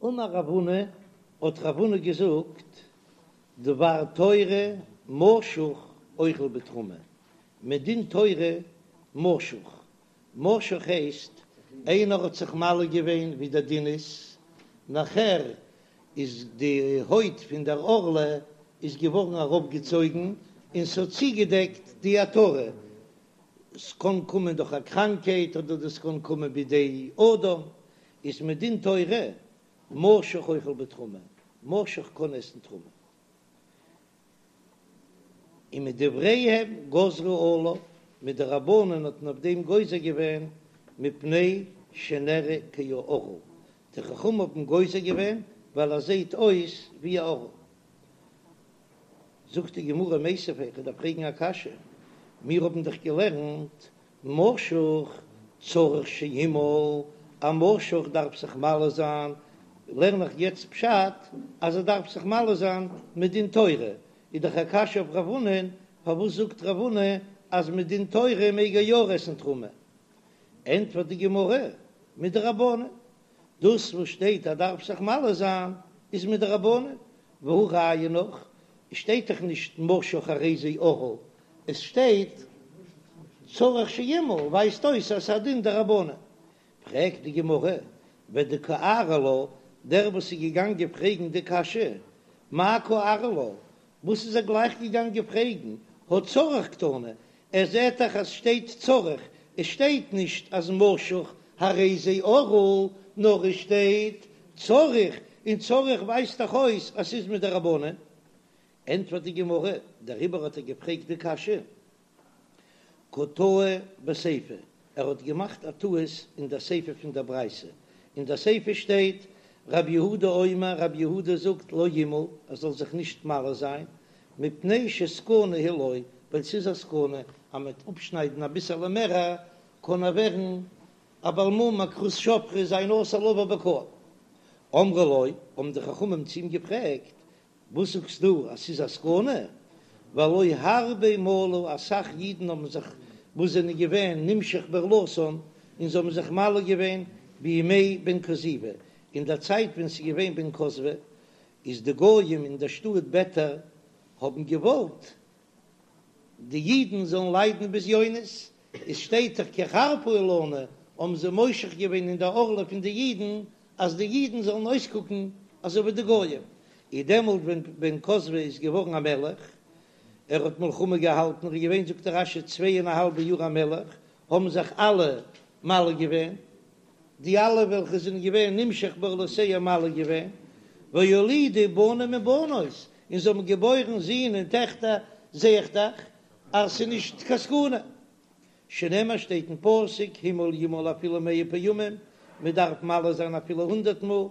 אמר רב הונא, האט רב הונא געזאגט, דבר תורה משוך אוכל בתרומה, מדין תורה משוך, משוך הייסט איינער האט זיך מל געווען ווי דער דין איז, נאכער איז די הויט פון דער ערלה איז געווארן אראפגעצויגן און ס'האט צוגעדעקט די עטרה, ס'קען קומען דורך א קראנקייט אדער דאס קען קומען בידי אדם, איז מדין תורה משוך אוכל בתרומה, משוך קען עסן תרומה. און מדבריהם גזרו עליו, מדרבנן האט מען אויף דעם גוזר געווען מפני שנראה כערל, די חכמים האבן גוזר געווען ווייל ער זעט אויס ווי א ערל. זאגט די גמרא מיתיבי, איך דארף פרעגן א קשיא, מיר האבן דאך געלערנט משוך צריך שימול, א משוך דארף זיך מל זיין, לערן איך יעצט פשט אז ער דארף זיך מל זיין מדין תורה, איז דאך א קשיא אויף רב הונא'ן, פארוואס זאגט רב הונא אז מדין תורה מעג ער יא עסן תרומה? ענטפערט די גמרא, מדרבנן, דאס וואס שטייט אז דארף זיך מל זיין איז מדרבנן, והא ראיה נאך, עס שטייט דאך נישט משוך הרי זה ערל, עס שטייט צריך שימול, ווייזט אויס אז ס'איז א דין דרבנן. פרעגט די גמרא, ודקארי לה, דער וואס איז געגאנגען פרעגן די קשיא, מאי קארי לה, וואס איז ער גלייך געגאנגען פרעגן, הא צריך קתני, ער זעט דאך אז שטייט צריך, עס שטייט נישט אז משוך הרי זה ערל, נאר עס שטייט צריך, און צריך ווייזט דאך אויס אז ס'איז מדרבנן. ענטפערט די גמרא, דעריבער האט ער געפרעגט די קשיא, קא טעי בסיפא, ער האט געמאכט א טעות אין דער סיפא פון דער ברייתא, אין דער סיפא שטייט רב יהודה אומר, רב יהודה זאגט לא ימול, ער זאל זיך נישט מל זיין, מפני שסכנה היא לו, ווייל ס'איז א סכנה אז מ'וועט אפשניידן אביסעלע מער, קען ער ווערן א בעל מום א כרות שפכה זיין אסור לבוא בקהל. אמרו לו, האבן די חכמים צו אים געפרעגט, וואס זאגסטו אז ס'איז א סכנה? והלא הרבה מלו, אסאך אידן האבן זיך וואס זענען געווען נמשך בערלתן און זיי האבן זיך מל געווען בימי בן כוזיבא, אין דער צייט ווען ס'איז געווען בן כוזיבא, איז די גויים אין דער שטאט ביתר האבן געוואלט די אידן זאלן ליידן בזיונות, עס שטייט דאך כי חרפה היא לנו, האבן זיי מושך געווען אין די ערלה פון די אידן אז די אידן זאלן אויסקוקן אזוי ווי די גויים, איז דעמאלט ווען בן כוזיבא איז געווארן א מלך, ער האט מלחמה געהאלטן, ער איז געווען זאגט רש"י צוויי און א האלבע יאר א מלך, האבן זיך אלע מל געווען, די אלע וועלכע זענען געווען נמשך בערלותיהם מל געווען, והולידו בנים ובנות, און זיי האבן געבוירן זין און טעכטער, זע איך דאך אז ס'איז נישט קיין סכנה. שנאמר שטייט אין פסוק המול ימול אפילו מאה פעמים, מען דארף מל זיין אפילו הונדערט מאל,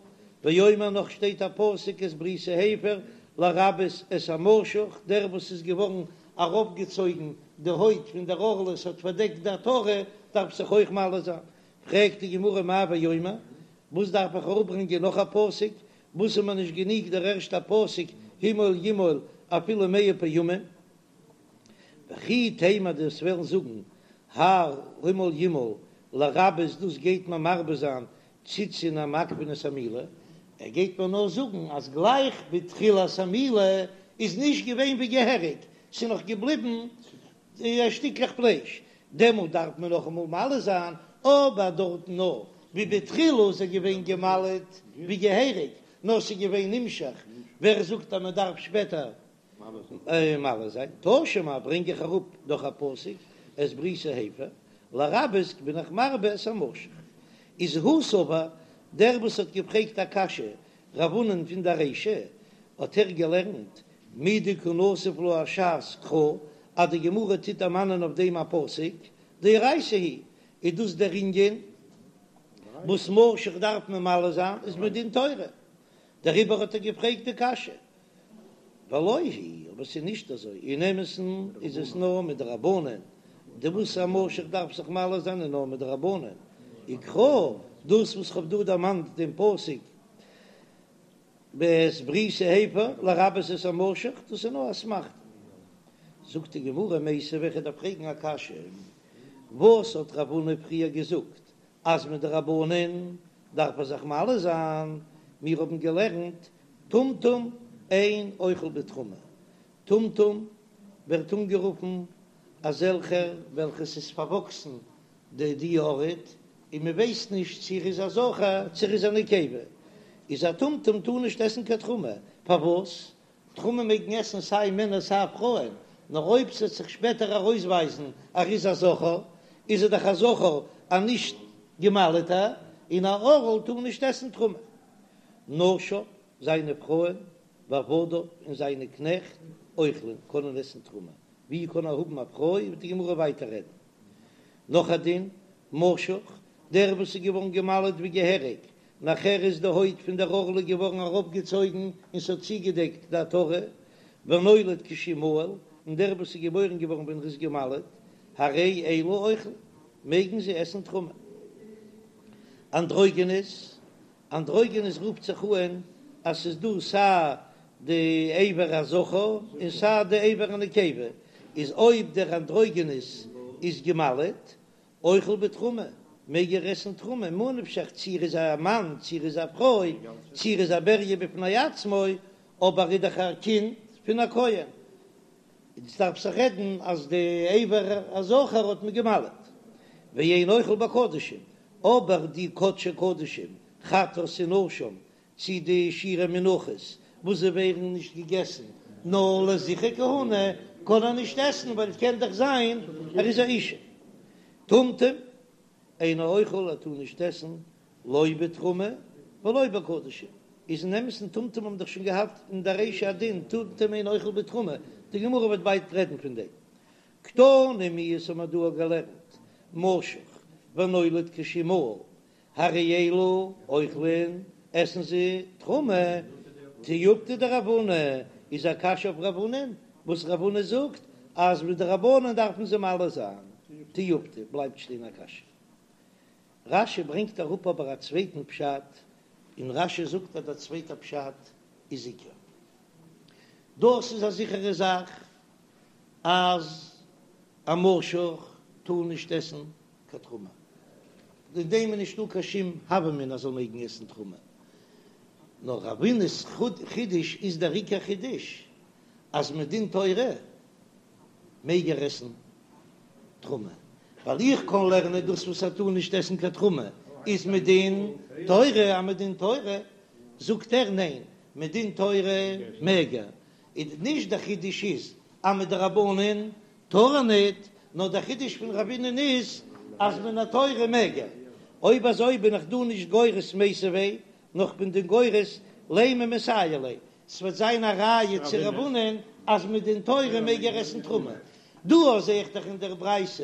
ואומר נאך שטייט א פסוק את בריתי הפר לרבות את המשוך, דער וואס איז געווארן אראפגעצויגן די הויט פון דער ערלה ס'האט פארדעקט די עטרה דארף זיך אויך מל זיין, פרעגט די גמרא מאי ואומר, וואס דארף איך אראפברענגען נאך א פסוק, וואס איז מיר נישט גענוג דער ערשטער פסוק המול ימול אפילו מאה פעמים? וכי תימא דו וועסט וועלן זאגן האי המול ימול לרבות דאס גייט מען מרבה זיין ציצין המעכבין את המילה, ער גייט מיר נאר זאגן אז גלייך בתחילת המילה איז נישט געווען ווי געהעריג, ס'איז נאך געבליבן שטיקלעך פלייש, דעמאלט דארף מען נאכאמאל מל זיין, אבער דארטן נאר ווי בתחילה איז ער געווען געמל'ט ווי געהעריג, נאר ס'איז געווען נמשך, ווער זאגט אז מען דארף שפעטער מל זיין? תא שמע ברענג איך אראפ דאך א פסוק את בריתי הפר, לרבות בין איך מרבה את המשוך. איז הוא סבר, דער וואס האט געפרעגט א קשיא רב הונא'ן פון דער רישא, האט ער געלערנט מדקא נסיב לה הש"ס קרא, אז די גמרא טוט דערמאנען אויף דעם א פסוק, דאורייתא היא, איז דאס דער ענין וואס משוך דארף מען מל זיין איז מדין תורה, דעריבער האט ער געפרעגט די קשיא, ולא היא, אבער ס'איז נישט אזוי, אין אמת'ן איז עס נאר מדרבנן, די וואס א משוך דארף זיך מל זיין איז נאר מדרבנן, וקרא, דאס וואס כ'האב דא דערמאנט דעם פסוק ואת בריתי הפר לרבות את המשוך, דאס איז נאר אסמכתא. זאגט די גמרא מיתיבי, איך דארף פרעגן א קשיא, וואס האט רב הונא פריער געזאגט אז מדרבנן דארף ער זיך מל זיין? מיר האבן געלערנט טומטום אין אוכל בתרומה, טומטום ווערט אנגערופן אזעלכער וועלכע ס'איז פארוואקסן די די ארט און מען ווייסט נישט צו ער איז א זכר צו ער איז א נקבה, איז א טומטום טאר נישט עסן קיין תרומה, פארוואס? תרומה מעגן עסן סיי מענער סיי פרויען, נאר אויב ס'וועט זיך שפעטער ארויסווייזן ער איז א זכר, איז ער דאך א זכר א נישט געמל'טער, און א ערל טאר נישט עסן תרומה. נשיו, זיינע פרויען, ועבדיו, און זיינע קנעכט, אוכלין, קענען עסן תרומה. ווי קען ער האבן א פרוי, וועט די גמרא ווייטער רעדן. נאך א דין, משוך, דער וואס איז געווארן געמל'ט ווי געהעריג, נאכער איז די הויט פון דער ערלה געווארן אראפגעצויגן און ס'האט צוגעדעקט די עטרה, ונולד כשהוא מהול, און דער וואס איז געבוירן געווארן ווען ער איז געמל'ט, הרי אלו אוכלין, מעגן זיי עסן תרומה. אנדרוגינוס, אנדרוגינוס רופט זיך אן אז ס'איז דא סיי די אבר הזכר און סיי די אבר הנקבה, איז אויב דער אנדרוגינוס איז געמל'ט, אוכל בתרומה, מעג ער עסן תרומה, ממה נפשך צי ער איז א מאן צי ער איז א פרוי, צי ער איז א בריה בפני עצמו, אבער ער איז דאך א קינד פון א כהן, איז דארף זיך רעדן אז די אבר הזכר האט מען געמל'ט, ואין אוכל בקדשים, אבער די קדשי קדשים, חטאת און אשם, צי די שירי מנחות וואס זיי ווערן נישט געגעסן נאר לזכרי כהונה, קען ער נישט עסן ווייל קען דאך זיין ער איז א אישה. טומטום אינו אוכל ער טאר נישט עסן לא בתרומה ולא בקדשים, איז אין אמת'ן טומטום האבן דאך שוין געהאט אין די רישא א דין טומטום אינו אוכל בתרומה, די גמרא וועט ווייטער רעדן פון דעם. קתני מיהת האט מען דא געלערנט משוך ונולד כשהוא מהול הרי אלו אוכלין, עסן זיי תרומה, תיובתא דרב הונא, איז א קשיא אויף רב הונא'ן, וואס רב הונא זאגט אז מדרבנן דארפן זיי מל זיין, תיובתא בלייבט שטיין א קשיא. רש"י ברענגט אראפ אבער א צווייטן פשט, און רש"י זאגט אז דער צווייטער פשט איז עיקר. דאס איז א זיכערע זאך אז א משוך טאר נישט עסן קיין תרומה, אין דעם איז נישטא קיין שום הוה אמינא אז זאל מעגן עסן תרומה, נאר רב הונא'ס חידוש איז דער עיקר חידוש אז מדין תורה מעג ער עסן תרומה, ווייל איך קען לערנען דאס וואס ער טאר נישט עסן קיין תרומה איז מדין תורה, אז מדין תורה זאגט ער ניין מדין תורה מעג ער, איז נישט דער חידוש איז אז מדרבנן טאר ער ניט, נאר דער חידוש פון רב הונא'ן איז אז מן התורה מעג ער. אויב אזוי בין איך דא נישט גורס מיתיבי, נאר כ'בין דא גורס לימא מסייע ליה, ס'וועט זיין א ראיה צו רב הונא'ן אז מדין תורה מעג ער עסן תרומה. דא זע איך דאך אין דער ברייתא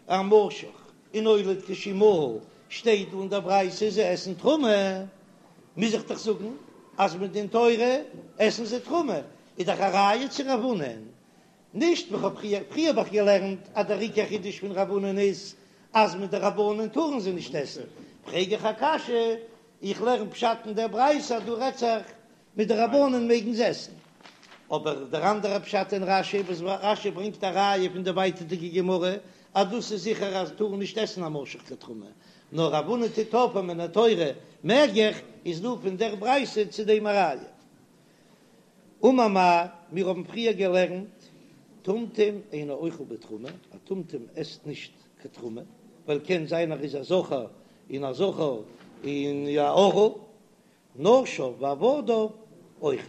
א משוך און נולד כשהוא מהול, שטייט דא אין דער ברייתא זיי עסן תרומה, מוז איך דאך זאגן אז מדין תורה עסן זיי תרומה, איז דאך א ראיה צו רב הונא'ן. נישט ווי כ'האב פריער, פריער האב איך געלערנט אז דער עיקר חידוש פון רב הונא'ן איז אז מדרבנן טארן זיי נישט עסן, פרעג איך א קשיא, איך לערן פשט אין דער ברייתא אז דא רעדט זיך מדרבנן מעגן זיי עסן, אבער דער אנדערער פשט אין רש"י וואס רש"י ברענגט א ראיה פון די ווייטערדיגע גמרא אז דאס איז זיכער אז טארן נישט עסן א משוך קיין תרומה, נאר רב הונא טוט אויף אז מן התורה מעג איך, איז דא פון דער ברייתא צו דעם א ראיה. אמר מר, מיר האבן פריער געלערנט, טומטום אינו אוכל בתרומה, א טומטום עסט נישט קיין תרומה, ווייל קען זיין ער איז א זכר און א זכר און א ערל, נשיו ועבדיו אוכלין,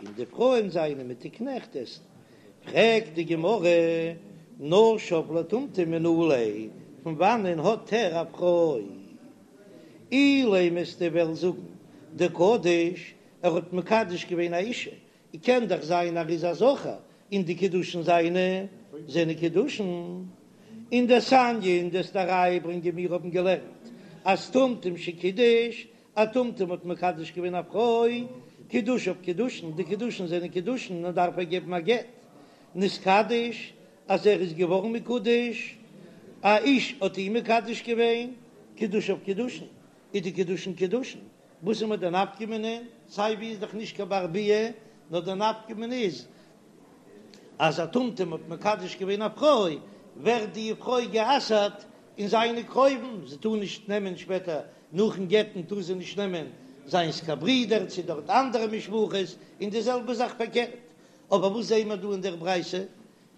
און די פרויען זיינע מיט די קנעכט עסן. פרעגט די גמרא, נשיו לטומטום מנא ליה, פון וואנען האט ער א פרוי? אילימא וועסטו וועלן זאגן דקדיש ער האט מקדש געווען א אישה, און קען דאך זיין ער איז א זכר, און די קידושין זיינע זענען קידושין. און דתניא און דו'סט א ראיה ברענגען מיר האבן געלערנט אז טומטום שקידש, א טומטום האט מקדש געווען א פרוי, קידושיו קידושין, די קידושין זענען קידושין און דארף ער געבן א גט, נתקדש אז ער איז געווארן מקודש, א איש האט אים מקדש געווען, קידושיו קידושין, איז די קידושין קידושין. וואס איז מיר די נפקא מינה? סיי ווי איז דאך נישט קיין בר ביאה, נאר די נפקא מינה איז אז א טומטום האט מקדש געווען א פרוי, ווערט די פרוי גע'אסר'ט אין זיינע קרובים, זי טאר נישט נעמען שפעטער נאכן גט'ן טאר זי נישט נעמען. זיינס קיין ברודער צו דארט אנדערע משפחות, און די זעלבע זאך פארקערט. אבער וואס זעהן מיר דא אין דער ברייתא?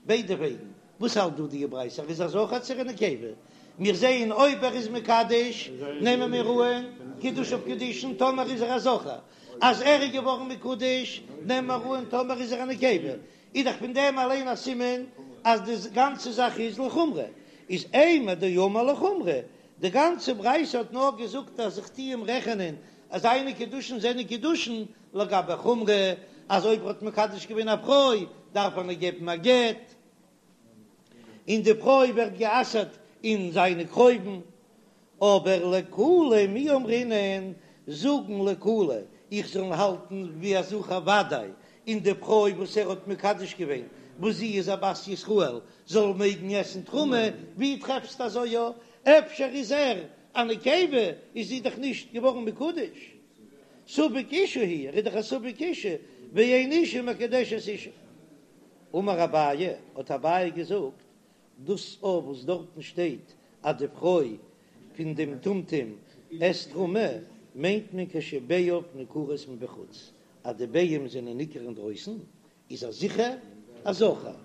ביידע וועגן. וואס האלט דא די ברייתא? ער איז א זכר צו ער איז א נקבה? מיר זעהן אויב ער איז מקדש נעמען מיר אהן קידושיו קידושין טאמער איז ער א זכר, אז ער איז געווארן מקודש נעמען מיר אהן טאמער איז ער א נקבה, איז דאך פון דעם אליין א סימן אז די גאנצע זאך איז לחומרא, איז אימר דאמר לחומרא, די גאנצע ברייתא האט נאר געזאגט אז איך טוה אים רעכענען אז זיינע קידושין זענען קידושין לגבי חומרא, אז אויב ער האט מקדש געווען א פרוי דארף ער איר געבן א גט, און די פרוי ווערט גע'אסר'ט אין זיינע קרובים, אבער לקולא מי אמרינן, זאגן לקולא איך זאל האלטן ווי א זכר וודאי, און די פרוי וואס ער האט מקדש געווען וואס זי איז א בת ישראל זאל מעגן עסן תרומה, ווי טרעפסטו אזוי יא? אפשר איז ער א נקבה איז זי דאך נישט געווארן מקודש, ספק אשה הוא, ער איז דאך א ספק אשה, ואין אשה מקדשת אשה. אמר אביי, האט אביי געזאגט, דאס אויף וואס דארטן שטייט אז די פרוי פון דעם טומטום עסט תרומה, מיינט מען כשביעיו ניכרות מבחוץ, אז די ביעים זענען ניכר אינדרויסן, איז ער זיכער א זכר.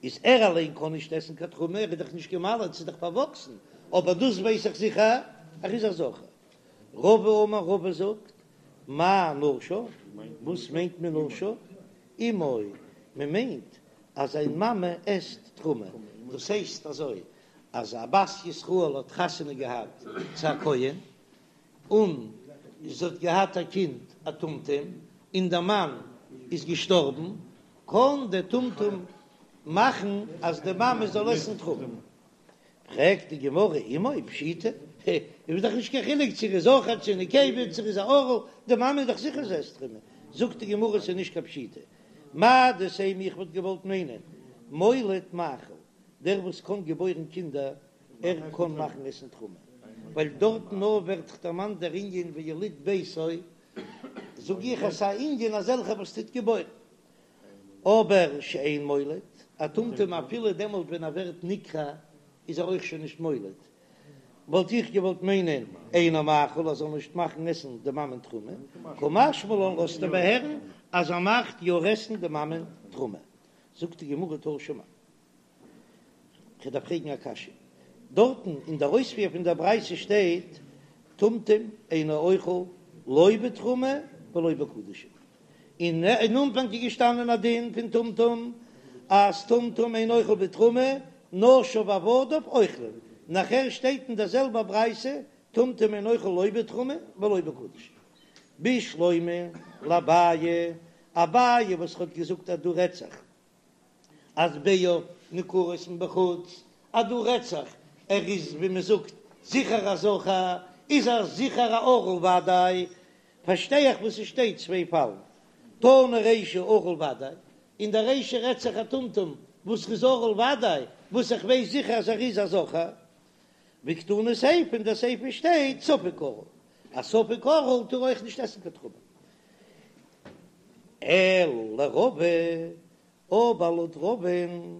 איז ער אליין קען נישט עסן קיין תרומה, ער איז דאך נישט גע'מל'ט, ס'איז דאך פארוואקסן, אבער דאס ווייס איך זיכער, ער איז א זכר. רבא אמר רבא זאגט, מאי נשיו, וואס מיינט מען נשיו? אמו, מען מיינט אז זיין מאמע עסט תרומה, דאס הייסט אזוי, אז א בת ישראל האט חתונה געהאט צו א כהן, און זי האט געהאט א קינד א טומטום, און דער מאן איז געשטארבן, קען דער טומטום מאכן אז די מאמע זאל עסן תרומה. פרעגט די גמרא אמו פשיטא, איז דאך נישט קיין חילוק צו ער איז זכר צו נקבה צו ער איז א ערל, די מאמע איז דאך זיכער זי עסט תרומה. זאגט די גמרא ס'איז נישט קיין פשיטא, מהו דתימא איך וואלט געוואלט מיינען מוליד מאכיל, דער וואס קען געבוירן קינדער ער קען מאכן עסן תרומה, ווייל דארטן נאר ווערט דאך דערמאנט דער ענין ויליד ביתו, זאג איך אז ס'איז א ענין אזעלכע וואס טוט געבוירן. אבער שאין מוליד, א טומטום אפילו דעמאלט ווען ער ווערט נקרע איז ער אויך שוין נישט מוליד, וואלט איך געוואלט מיינען אינו מאכיל ער זאל נישט מאכן עסן די מאמען תרומה, קא משמע לן לאזט ער הערן אז ער מאכט יא עסן די מאמען תרומה. זאגט די גמרא תא שמע. כ'דארף פרעגן א קשיא. דארטן אין דער אויספיר פון דער ברייתא שטייט טומטום אינו אוכל לא בתרומה ולא בקדשים. און אין אנפאנג איז געשטאנען א דין פון טומטום אז טומטום אינו אוכל בתרומה, נשיו ועבדיו אוכלים. נאכער שטייט אין דער זעלבער ברייתא טומטום אינו אוכל לא בתרומה ולא בקדשים. בשלמא לאביי, אביי וואס האט געזאגט אז דא רעדט זיך אז ביעיו ניכרות מבחוץ, אז דא רעדט זיך ער איז ווי מען זאגט זיכער א זכר, איז ער זיכער א ערל וודאי, פארשטיי איך וואס עס שטייט צוויי פאלן, תנא רישא ערל וודאי, אין די רישא רעדט זיך א טומטום וואס איז ערל וודאי, וואס איך ווייס זיכער אז ער איז א זכר, וקתני סיפא אין די סיפא שטייט ספק ערל, א ספק ערל טאר אויך נישט עסן קיין תרומה. אלא לרבא, אבער לויט רבא'ן,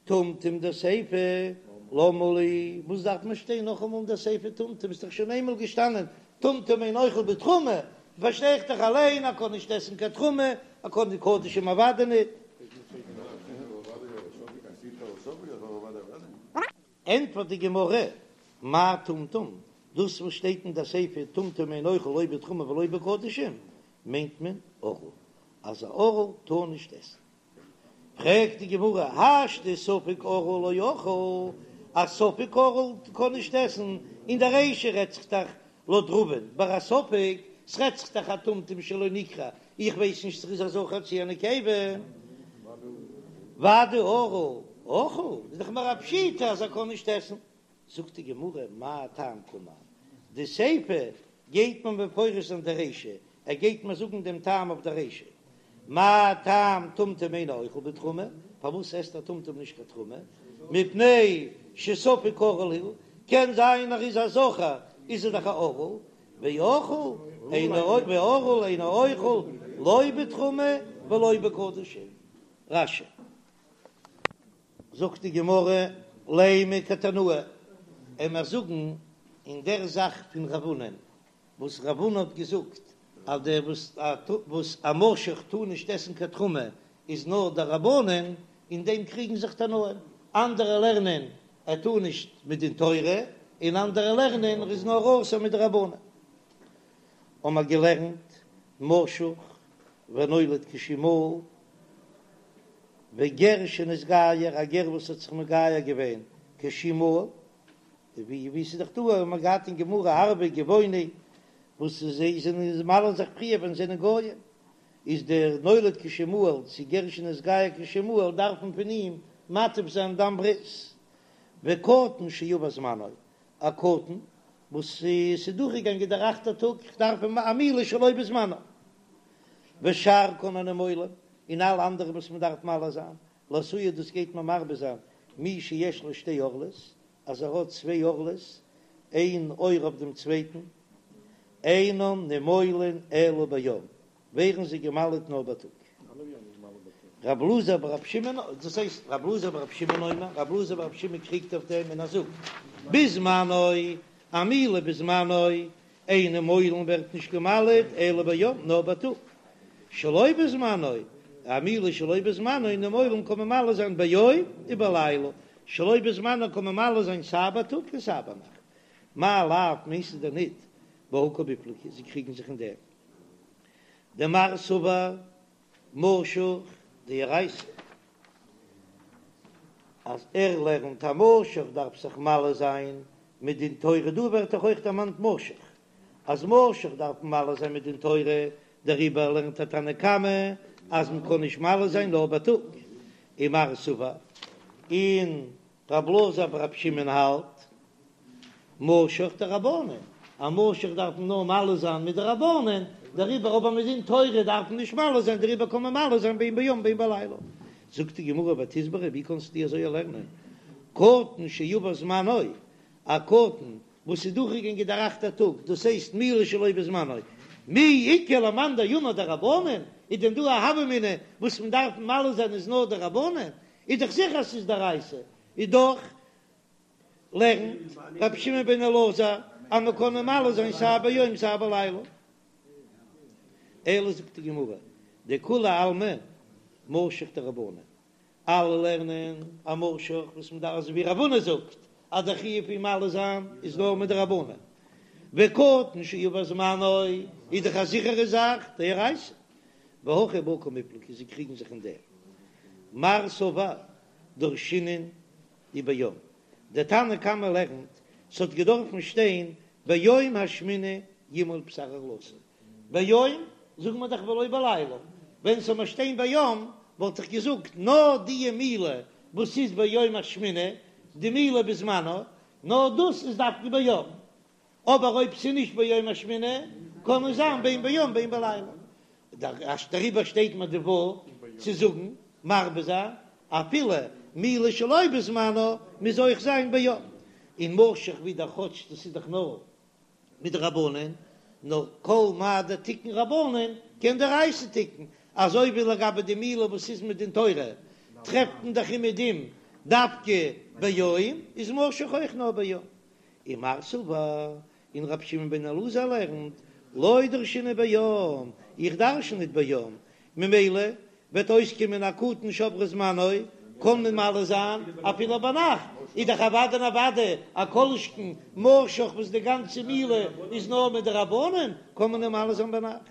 טומטום דסיפא, למה לי, וואס דארף מען שטיין נאכאמאל אין די סיפא טומטום, איז דאך שוין איינמאל געשטאנען טומטום אינו אוכל בתרומה, פארשטיי איך דאך אליין ער קען נישט עסן קיין תרומה, ער קען די קדשים אוודאי ניט. ענטפערט די גמרא, מאי טומטום, דאס וואס שטייט אין די סיפא טומטום אינו אוכל לא בתרומה ולא בקדשים, מיינט מען ערל, אז א ערל טאר נישט עסן. פרעגט די גמרא, השתא ספק ערל לא אכיל, א ספק ערל קען נישט עסן, אין די רישא רעדט זיך דאך לויט רבא'ן ביי א ספק, ס'רעדט זיך דאך א טומטום שלא נקרע, איך ווייס נישט צו ס'איז א זכר צו א נקבה. ודאי ערל אכיל, איז דאך מער א פשיטא אז ער קען נישט עסן. זאגט די גמרא, מאי טעם קאמר, די סיפא גייט מען מפרש זיין די רישא, ער גייט מיר זאגן דעם טעם אויף די רישא, מה טעם טומטום אינו אוכל בתרומה, פארוואס עסט א טומטום נישט קיין תרומה, מפני שספק ערל הוא, קען זיין ער איז א זכר, איז ער דאך א ערל, ואוכל אינו וערל אינו אוכל לא בתרומה ולא בקדשים. רש"י. זאגט די גמרא, לימא כתנאי, עמער זאגן אין דער זאך פון רב הונא'ן. וואס רב הונא האט געזאגט אז דער וואס וואס א משוך טאר נישט עסן קיין תרומה איז נאר דרבנן, אין דעם קריגן זיך תנאים, אנדערע לערנען ער טאר נישט מדין תורה, און אנדערע לערנען ער איז נאר אסור מדרבנן. האבן מיר געלערנט משוך ונולד כשהוא מהול, וגר שנתגייר, א גר וואס האט זיך מגייר געווען כשהוא מהול, ווי ווי ס'איז דאך דא האבן מיר געהאט אין גמרא ערבי גבעוני וואס זיי זענען מל'ן זיך פריער ווען זיי זענען גויים, איז דער נולד כשהוא מהול צו גר שנתגייר כשהוא מהול דארף מען פון אים מטיף זיין דם ברית, וקטן שעבר זמנו, א קטן וואס ס'איז דורכגעגאנגען דער אכטער טאג, איך דארף אים א מילה שלא בזמנו, ושאר כל הנימולים, און אלע אנדערע וואס מען דארף מל זיין, לאתויי דאס גייט מען מרבה זיין מי שיש לו שתי ערלות, אז ער האט צוויי ערלות, איין עור אויף דעם צווייטן, אינן נימולין אלא ביום, ווערן זיי געמל'עט נאר בייטאג. רב אלעזר ברב שמעון, דאס הייסט רב אלעזר ברב שמעון אומר, רב אלעזר ברב שמעון קריגט אויף דעם און ער זאגט, בזמנו, א מילה בזמנו, אין נימולין ווערט נישט געמל'עט אלא ביום, נאר בייטאג. שלא בזמנו, א מילה שלא בזמנו, נימולין קען מען מל זיין ביום ובלילה, שלא בזמנו קען מען מל זיין סיי בייטאג און סיי ביינאכט. מאי לאו מיינסטו דען ניט בהא קמיפלגי, זיי קריגן זיך אין דעם. דמר סבר משוך דאורייתא אז ער לערנט א משוך דארף זיך מל זיין מדין תורה, דא ווערט דאך אויך דערמאנט משוך אז משוך דארף מען מל זיין מדין תורה, דעריבער לערנט א תנא קמא אז מען קען נישט מל זיין נאר בייטאג, ומר סבר און רב אלעזר ברב שמעון האלט משוך דרבנן, א משוך דארף מען נאר מל זיין מדרבנן, דעריבער אבער מדין תורה דארף מען נישט מל זיין, דעריבער קען מען מל זיין בין ביום בין בלילה. זאגט די גמרא ותסברא, ווי קענסטו אזוי לערנען קטן שעבר זמנו, א קטן וואס איז דורכגעגאנגען דער אכטער טאג, דאס הייסט מילה שלא בזמנו, מי איכא למאן דאמר דרבנן, איז דען דא א הוה אמינא וואס מען דארף מל זיין איז נאר דרבנן, איז דאך זיכער אז ס'איז דאורייתא, איז דאך לערנט רבי שמעון בן אלעזר אז מען קען מל זיין סיי ביום סיי בלילה. אלא זאגט די גמרא, דכולי עלמא משוך דרבנן, אלע לערנען א משוך וואס מען דארף אזוי ווי רב הונא זאגט אז דער חיוב פון מל זיין איז נאר מדרבנן, וקטן שעבר זמנו איז דאך א זיכערע זאך דאורייתא, והכא בהא קמיפלגי זיי קריגן זיך אין דעם מר סבר דרשינן וביום, דער תנא קמא לערנט ס'האט געדארפן שטיין ביום השמיני ימול בשר ערלתו, ביום זאגן מיר דאך ולא בלילה, ווען ס'זאל מיר שטיין ביום וואלט איך געזאגט נאר די מילה וואס איז ביום השמיני, די מילה בזמנו, נאר דאס איז דווקא ביום, אבער אויב ס'איז נישט ביום השמיני קען עס זיין בין ביום בין בלילה, דעריבער שטייט מיר די וואו צו זאגן מרבה זיין אפילו מילה שלא בזמנו מוז אויך זיין ביום, און משוך ווידער כאטש דאס איז דאך נאר מדרבנן, נאר כל מה דתיקון רבנן קען דאורייתא תיקון, אזוי ווי לגבי די מילה וואס איז מדין תורה טרעפט מען דאך אומעדום דווקא ביום, איז משוך אויך נאר ביום. ומר סבר, און רבי שמעון בן אלעזר לערנט, לא דרשינן ביום, איך דרשן ניט ביום, ממילא וועט אויסקומען א קטן שעבר זמנו, קען מען מל זיין אפילו ביינאכט, איז דאך אוודאי און אוודאי א כל שכן משוך וואס די גאנצע מילה איז נאר מדרבנן, קען מען אים מל זיין ביינאכט.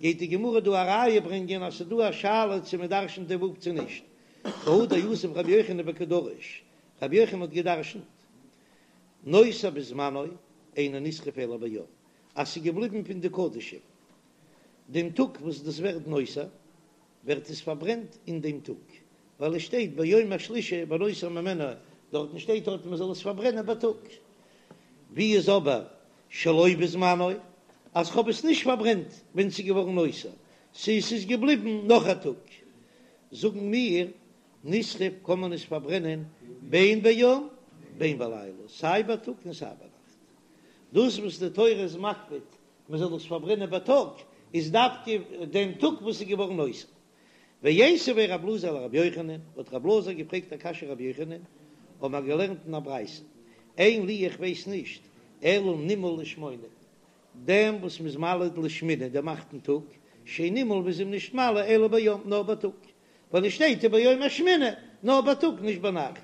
גייט די גמרא דא א ראיה ברענגען אז ס'איז דא א שאלה צו מען דרשנט די ו' צו נישט, והא דיתיב רבי יוחנן וקא דריש, רבי יוחנן האט געדרשנט נותר בזמנו אינו נשרף אלא ביום, אז ס'איז געבליבן פון די קדשים דעם טאג וואס דאס ווערט נותר, ווערט עס פארברענט אין דעם טאג, ווייל עס שטייט ביום השלישי ונותר ממנו, דארטן שטייט דארט מען זאל עס פארברענען בייטאג. ווי איז אבער שלא בזמנו, אז כ'האב עס נישט פארברענט ווען ס'איז געווארן נותר, ס'איז ס'איז געבליבן נאך א טאג, זאגן מיר נשרף קען מען עס פארברענען בין ביום בין בלילה, סיי בייטאג און סיי ביינאכט. דאס וואס די תורה איז מקפיד מען זאל עס פארברענען בייטאג, איז דווקא דעם טאג וואס איז געווארן נותר. ואיתיביה רב אלעזר לרבי יוחנן, האט רב אלעזר געפרעגט א קשיא רבי יוחנן, האבן מיר געלערנט אין א ברייתא, אין לי איך ווייס נישט, אלא נימול לשמונה. דעם וואס מ'איז מל לשמיני דעם אכטן טאג, שאין נימול מ'איז אים נישט מל אלא ביום נאר בייטאג, ווייל עס שטייט וביום השמיני נאר בייטאג נישט ביינאכט,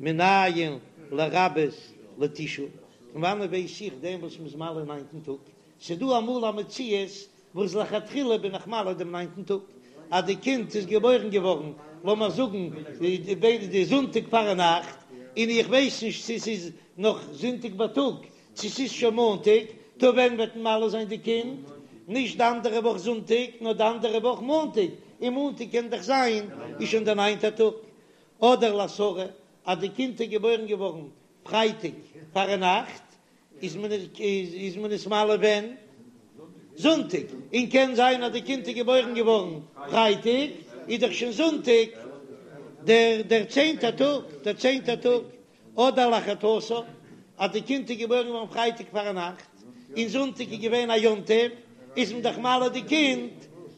מנין לרבות לתשעה, פון וואנעט ווייס איך דעם וואס מ'איז מל אין ניינטן טאג, ס'דא אמאל א מציאות וואס לכתחילה בין איך מל דעם ניינטן טאג, אז די קינד איז געבוירן געווארן לאמיר זאגן די זונטאג פארנאכט, און איך ווייס נישט צו ס'איז נאך זונטאג בייטאג צו ס'איז שוין מאנטאג, טא ווען וועט מען מל זיין די קינד? נישט די אנדערע וואך זונטאג, נאר די אנדערע וואך מאנטאג, און מאנטאג קען דאך זיין איז שוין דער ניינטער טאג. אדער לעשרה, אז די קינד איז געבוירן געווארן פרייטאג פארנאכט, איז מען איז מען עס מל ווען? זונטאג, און קען זיין אז די קינד איז געבוירן געווארן פרייטאג, איז דאך שוין זונטאג דער דער צענטער טאג, דער צענטער טאג. אדער לאחד עשר, אז די קינד איז געבוירן געווארן פרייטאג פארנאכט, און זונטאג איז געווען א יום טוב, איז מען דאך מל די קינד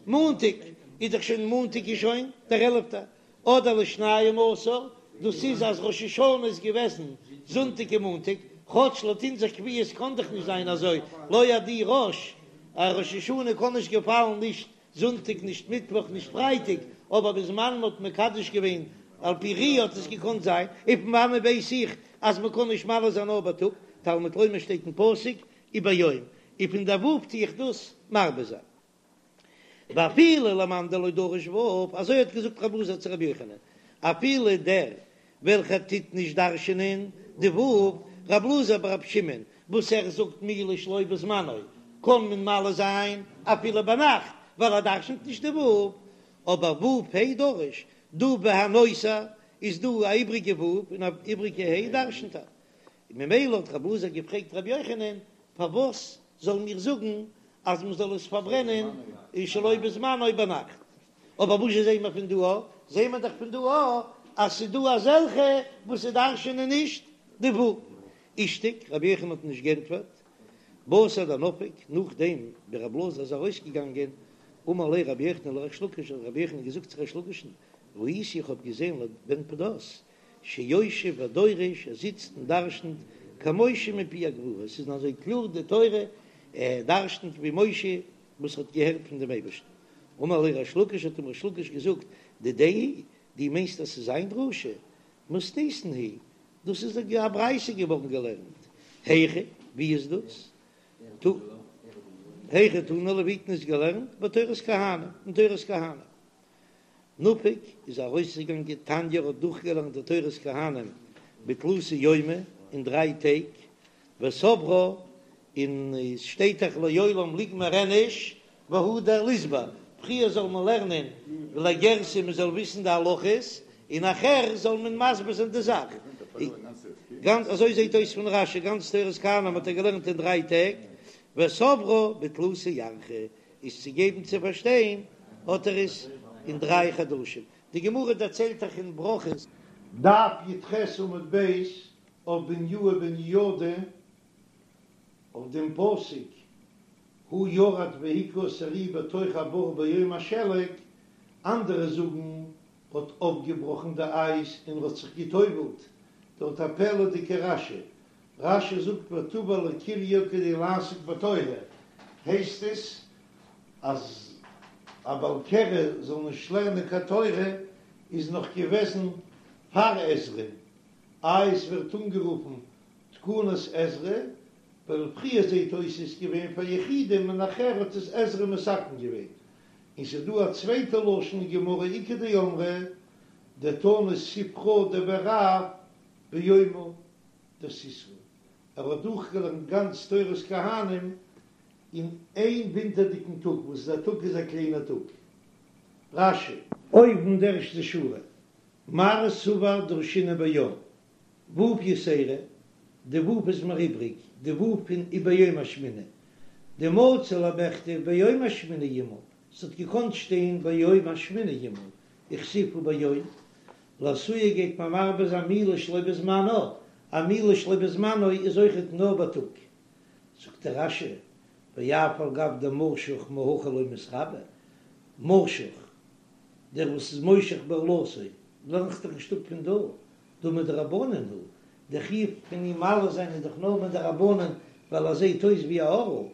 מאנטאג, איז דאך שוין מאנטאג איז שוין דער עלפטער, אדער לשנים עשר, דאס איז אז ראש השנה איז געוועזן זונטאג און מאנטאג, כאטש לויט אונזער קביעות קען דאך נישט זיין אזוי, לא עדי ראש, א ראש השנה קען נישט געפאלן נישט זונטאג נישט מיטוואך נישט פרייטאג, אבער בזמן מ'האט מקדש געווען על פי ראיה האט עס געקאנט זיין, און פון וואנען ווייס איך אז מ'קען נישט מל זיין נאר בייטאג, תלמוד לומר שטייט אין פסוק וביום, און פון דער ו' טו איך דאס מרבה זיין. ואפילו למאן דלא דריש ו', אזוי האט געזאגט רב אלעזר צו רבי יוחנן, אפילו דער וועלכער טוט נישט דרש'ענען די ו', רב אלעזר ברב שמעון, וואס ער זאגט מילה שלא בזמנו קען מען מל זיין אפילו ביינאכט ווייל ער דרש'נט נישט די ו', אבער ו' ה' דריש, דא והנותר איז דא א איבריגע ו' און א איבריגע ה' דרש'נט ער, ממילא האט רב אלעזר געפרעגט רבי יוחנן פארוואס זאלן מיר זאגן אז מען זאל עס פארברענען שלא בזמנו ביינאכט, אבער וואס זשע זעהן מיר פון דא א? זעהן מיר דאך פון דא א אז ס'איז דא אזעלכע וואס דרש'ענען נישט די ו'. אישתיק, רבי יוחנן האט נישט גענטפערט, בתר דנפק, נאכדעם ווי רב אלעזר איז ארויסגעגאנגען, אמר ליה רבי יוחנן לריש לקיש, האט רבי יוחנן געזאגט צו ריש לקיש'ן, ראיתי איך האב געזעהן לבן פדת שיושב ודורש, ער זיצט און דרש'נט כמשה מפי הגבורה, עס איז אזוי קלאר די תורה, ער דרש'נט ווי משה וואס האט געהערט פון דעם אייבערשטן. אמר ליה ריש לקיש, האט אים ריש לקיש געזאגט, דידיה היא, דו מיינסט אז ס'איז זיין דרשה? מתניתין היא, דאס איז א ברייתא געווארן געלערנט, היכא, ווי איז דאס? היכא תנא ליה, ווי האט מען עס געלערנט? בתורת כהנים, אין תורת כהנים. נפק איז ארויסגעגאנגען תניא האט דורכגעלערנט די תורת כהנים בתלתא יומי אין דריי טעג, וסברה, און עס שטייט דאך לעולם ליגמר איניש והדר ליסבר, פריער זאל מען לערנען ולגרסי מען זאל וויסן די הלכות, און נאכער זאל מען מסביר זיין די זאך. גאנץ אזוי זעט אויס פון רש"י, גאנץ תורת כהנים האט ער געלערנט אין דריי טעג, וסברה בתלתא ירחי, איז צו געבן צו פארשטיין האט ער עס אין דריי חדשים. די גמרא דערציילט דאך אין ברכות. דף י"ח עמוד ב' אויף בניהו בן יהוידע אויף דעם פסוק הוא ירד והכה את הארי בתוך הבור ביום השלג, אנדערע זאגן האט אויפגעבראכן די אייז און האט זיך גע'טובל'ט, דארט א פלא'דיגע רש"י, רש"י זאגט וטבל לקריו כדי לעסוק בתורה, הייסט עס אז א בעל קרי זאל נישט לערנען קיין תורה איז נאך געוועזן פאר עזרא, איי עס ווערט אנגערופן תקנת עזרא, ווייל פריער זעהט אויס איז געווען פאר יחידים און נאכער האט עס עזרא מתקן געווען, און ס'איז דא א צווייטע לשון אין גמרא איכא דאמרי דתני ספרא דבי רב ביומא דסיתוא, ער האט דורכגעלערנט גאנץ תורת כהנים אין איין ווינטערדיגן טאג, וואס איז א טאג איז א קליינער טאג. רש"י. אויבן די ערשטע שורה, מר סבר דרשינן ביום, ו' יתירא, די ו' איז מיר איבריג, די ו' פון וביום השמיני, דמצי למיכתב ביום השמיני ימול, ס'האט געקאנט שטיין ביום השמיני ימול, וכתיב וביום, לאתויי גייט מען מרבה זיין מילה שלא בזמנה, א מילה שלא בזמנו איז אויכעט נאר בייטאג. זאגט דער רש"י, ואף על גב דמשוך מהכא לא מתרבי, משוך, דער וואס איז מושך בערלתו, לערנט זיך דאך נישט אפ פון דא, דהא מדרבנן הוא, דער חיוב פון אים מל זיין איז דאך נאר מדרבנן ווייל ער זעט אויס ווי א ערל.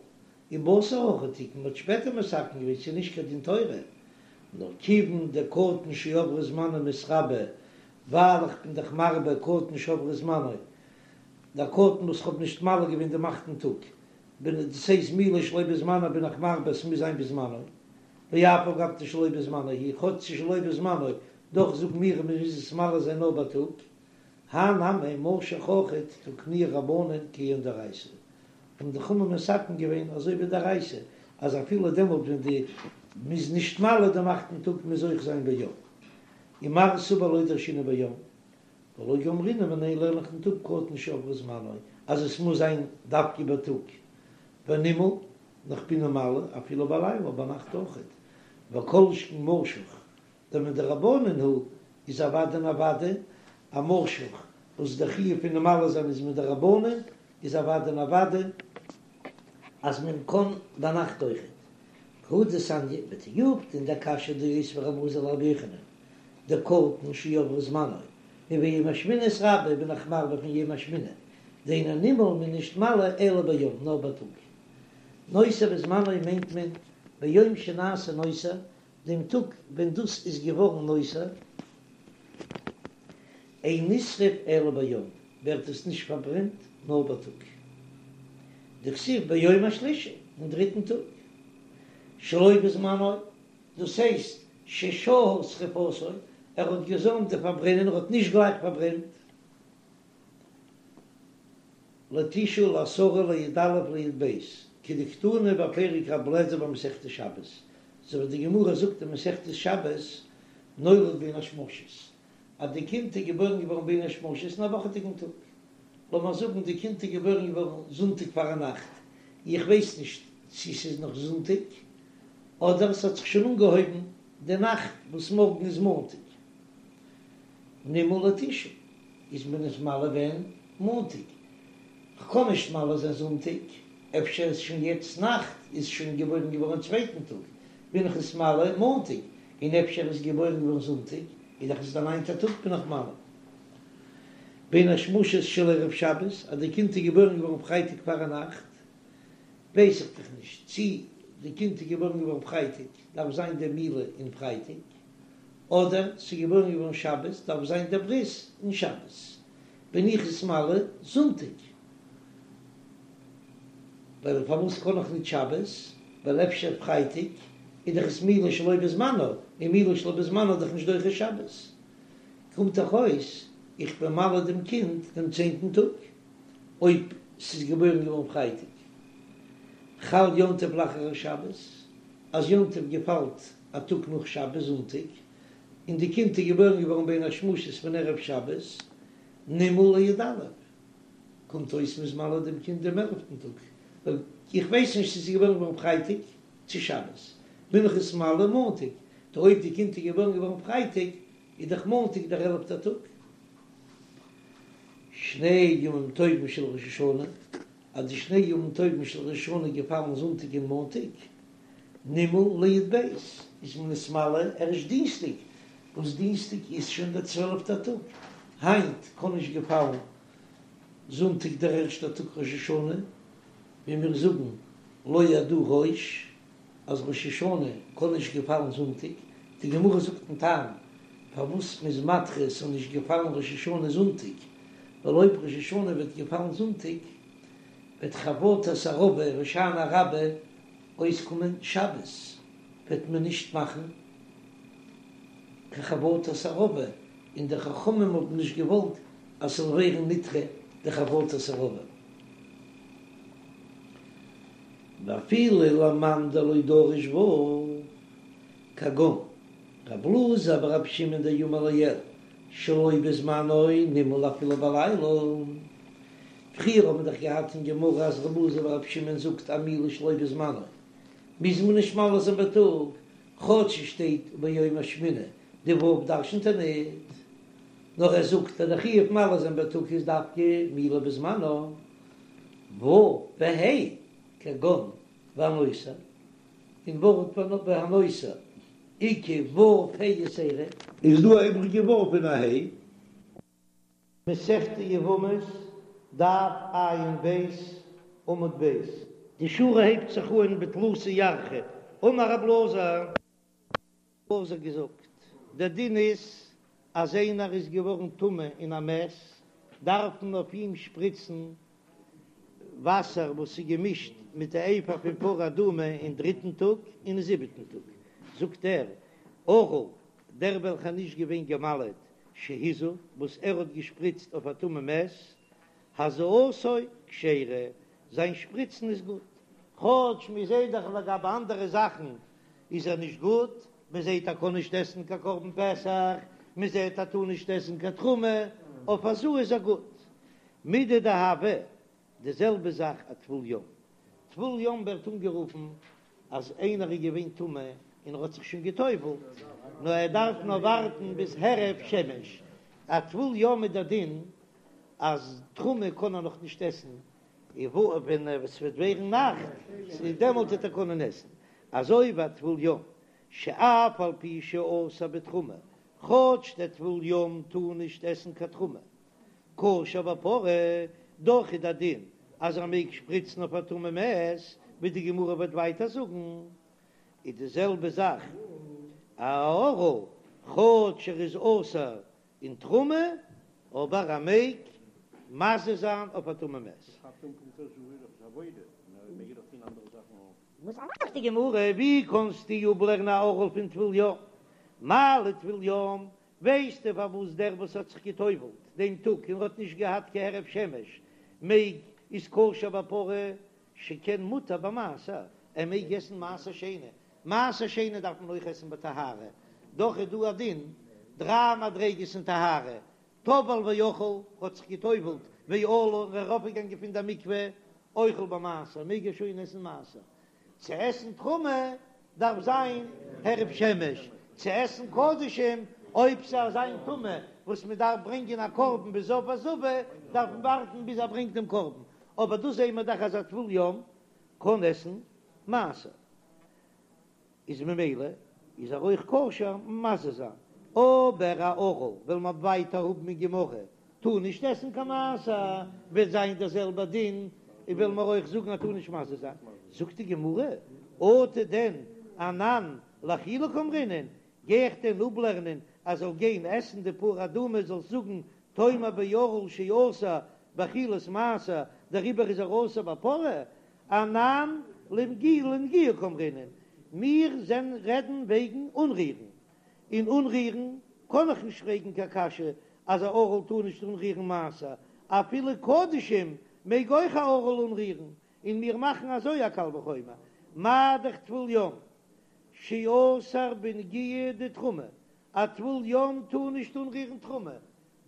ובתר הכי תקון, מ'האט שפעטער מתקן געווען, ס'איז נישט קיין דין תורה, נאר כיוון דקטן שעבר זמנו מתרבה, ווייל איך בין דאך מרבה קטן שעבר זמנו, דער קטן וואס כ'האב נישט מל געווען דעם אכטן טאג, בין דאס הייסט מילה שלא בזמנו בין איך מרבה עס מוז זיין בזמנו, ואף על גב דשלא בזמנו הוא, כאטש ס'איז שלא בזמנו, דאך זאגן מיר אז מ'מוז עס מל זיין נאר בייטאג, הא נמי משוך אויכעט תקנוה רבנן כעין דאורייתא, האבן די חכמים מתקן געווען אזוי ווי דאורייתא, אז אפילו דעמאלט ווען די מ'איז נישט מל דעם אכטן טאג מוז אויך זיין ביום. ומר סבר לא דרשינן ביום, ולא גמרינן מיניה לערן איך ניט אפ קטן שעבר זמנו אז עס מוז זיין דווקא בייטאג, ונימול נאר כ'בין אים מל אפילו בלילה ביינאכט אויכעט, וכל שכן משוך דמדרבנן הוא איז אוודאי און אוודאי א משוך וואס דער חיוב פון אים מל זיין איז מדרבנן איז אוודאי און אוודאי אז מען קען ביינאכט אויכעט. והא דתניא בתיובתא אין דער קשיא דאותביה רבי אלעזר לרבי יוחנן דקטן שעבר זמנו וביום השמיני אתרבי בין איך מרבה פון יום השמיני דאינו נימול מ'איז נישט מל אלא ביום נאר בייטאג נותר בזמנו מיינט מען ביום שנעשה נותר דעם טאג ווען דאס איז געווארן נותר, אין נשרף אלא ביום, ווערט עס נישט פארברענט נאר בייטאג. דכתיב ביום השלישי, אין דריטן טאג, שלא בזמנו, דאס הייסט ששהה שריפתו, ער האט געזוימט די פארברענען, ער האט נישט גלייך פארברענט. לתשעה לעשרה לי"א לי"ב, כדקתני בפרק רבי אליעזר במסכת שבת, אזוי ווי די גמרא זאגט אין מסכת שבת, נולד בין השמשות, אז די קינד איז געבוירן געווארן בין השמשות אין א וואכעדיגן טאג, לאמיר זאגן די קינד איז געבוירן געווארן זונטאג פארנאכט, איך ווייס נישט צו ס'איז נאך זונטאג, אדער ס'האט זיך שוין אנגעהויבן די נאכט וואס מארגן איז מאנטאג. נימול לתשעה איז מען עס מל ווען? מאנטאג. כ'קען נישט מל זיין זונטאג, אפשר איז שוין יעצט נאכט, איז שוין געבוירן געווארן צווייטן טאג, בין איך עס מל מאנטאג, און אפשר איז געבוירן געווארן זונטאג, איז דאך עס די ניינטע טאג בין איך מל. בין השמשות של ערב שבת, אז די קינד איז געבוירן געווארן פרייטאג פארנאכט, ווייס איך דאך נישט צי די קינד איז געבוירן געווארן פרייטאג, דארף זיין די מילה אין פרייטאג. אדער ס'איז געבוירן געווארן שבת דארף זיין דער ברית אין שבת, בין איך עס מל זונטאג, ווייל פארוואס קען איך ניט שבת, ווייל אפשר פרייטאג איז דאך עס מילה שלא בזמנו, און מילה שלא בזמנו איז דאך נישט דוחה שבת, קומט דאך אויס איך בין מל דעם קינד דעם צענטן טאג, אויב ס'איז געבוירן געווארן פרייטאג, חל יום טוב לאחר השבת, אז יום טוב געפאלט א טאג נאך שבת זונטאג, און די קינד איז געבוירן געווארן בין השמשות פון ערב שבת, נימול לי"א, קומט אויס מ'איז מל דעם קינד דעם עלפטן טאג, ווייל איך ווייס נישט צו ס'איז געבוירן געווארן פרייטאג צו שבת, בין איך עס מל מאנטאג, טא אויב די קינד איז געבוירן געווארן פרייטאג, איז דאך מאנטאג דער עלפטער טאג. שני ימים טובים של ראש השנה, אז די שני ימים טובים של ראש השנה געפאלן זונטאג און מאנטאג, נימול לי"ב, איז מען עס מל ערשט דינסטאג, וואס דינסטאג איז שוין דער צוועלפטער טאג, היינט קען נישט געפאלן זונטאג דער ערשטער טאג ראש השנה, ווי מיר זאגן לא ידעו ראש אז ראש השנה קען נישט געפאלן זונטאג, די גמרא זאגט דעם טעם פארוואס מ'איז מדחה ס'זאל נישט געפאלן ראש השנה זונטאג, ווייל אויב ראש השנה וועט געפאלן זונטאג וועט חבטת ערבה הושענא רבה אויסקומען שבת, וועט מען נישט מאכן קיין חבטת ערבה, און די חכמים האבן נישט געוואלט אז ס'זאל ווערן נדחה די חבטת ערבה. ואפילו למאן דלא דריש ו' כגון רב אלעזר ברבי שמעון דאמר לעיל שלא בזמנו נימול אפילו בלילה. פריער האבן מיר דאך געהאט אין גמרא אז רב אלעזר ברבי שמעון זאגט א מילה שלא בזמנו מוז מען נישט מל זיין בייטאג, כאטש עס שטייט וביום השמיני, די ו' דרשנ'ט ער ניט, נאר ער זאגט אז די חיוב מל זיין בייטאג איז דווקא מילה בזמנו, ו' וה' כגון והנותר, אין ווארט והנותר איכא ו' ה' יתירה. איז דא א איבריגע ו' און א ה'? מסכת יבמות, דף ע"ב, עמוד ב'. די שורה הייבט זיך אן בתלתא ירחי, אמר רב אלעזר. אלעזר געזאגט, דער דין איז אז איינער איז געווארן טמא אין א מת, דארף מען אויף אים שפריצן וואסער וואס איז געמישט מיט די אפר פון פרה אדומה אין דריטן טאג און אין זיבעטן טאג, זאגט ער, ערל, דער וועלכער נישט געווען געמל'עט, שהזה, וואס ער האט געשפריצט אויף א טמא מת, הזאתו כשרה, זיין שפריצן איז גוט, כאטש מען זעט דאך לגבי אנדערע זאכן איז ער נישט גוט, מען זעט ער קען נישט עסן קיין קרבן פסח, מען זעט ער טאר נישט עסן קיין תרומה, אויף הזאה איז ער גוט. מידי דהוה, די זעלבע זאך א טבול יום. טבול יום ווערט אנגערופן אז איינער איז געווען טמא און ער האט זיך שוין גע'טובל'ט, נאר ער דארף נאר ווארטן ביז הערב שמש. א טבול יום איז דער דין אז תרומה קען ער נאך נישט עסן, און ווען עס וועט ווערן נאכט, דעמאלט וועט ער קענען עסן. אזוי ווי א טבול יום, שאף על פי שאסור בתרומה, כאטש דער טבול יום טאר נישט עסן קיין תרומה, כשר בפרה, דאך איז דער דין אז ער מעג שפריצן אויף א טמא מת, ווי די גמרא וועט ווייטער זאגן, איז די זעלבע זאך א ערל, כאטש ער איז אסור אין תרומה, אבער ער מעג מזה זיין אויף א טמא מת. זאגט די גמרא, ווי קענסטו אפלערנען א ערל פון טבול יום? מה לטבול יום, ווייסטו פארוואס דער וואס האט זיך גע'טובל'ט דעם טאג און האט נישט געהאט קיין הערב שמש מעג איז כשר בפרה שכן מותר במעשר, ער מעג עסן מעשר שני, מעשר שני דארף מען אויך עסן בטהרה, דאך איז דא א דין דריי מדריגות אין טהרה, טבל ואכל, האט זיך גע'טובל'ט ועלה און ארויפגעגאנגען פון דער מקווה, אוכל במעשר, מעג ער שוין עסן מעשר, צו עסן תרומה דארף זיין הערב שמש, צו עסן קדשים אויב ס'איז אזא טומאה וואס מען דארף ברענגען א קרבן בזב וזבה דארף מען ווארטן ביז ער ברענגט דעם קרבן, אבער דא זעהן מיר דאך אז א טבול יום קען עסן מעשר. איז ממילא איז ער אויך כשר מזה זיין, אבער א ערל וועלן מיר ווייטער האבן אין גמרא טאר נישט עסן קיין מעשר, וועט זיין דער זעלבער דין, און וועלן מיר אויך זאגן אז טאר נישט מזה זיין, זאגט די גמרא, אטו דען אנן לאכילה קאמרינן, גיי איך דען אפלערנען אז זאל גיין עסן די פרה אדומה זאלסט זאגן תאמר בערל שאסור באכילת מעשר דעריבער איז ער אסור בפרה, אנן לנגיעה קאמרינן, מיר זענען רעדן וועגן אנרירן, און אנרירן קען איך נישט פרעגן קיין קשיא אז א ערל טאר נישט אנרירן מעשר, אפילו קדשים מעג אויך א ערל אנרירן, און מיר מאכן אזוי א קל וחומר, מה דאך טבול יום שאסור בנגיעה דתרומה, א טבול יום טאר נישט אנרירן תרומה,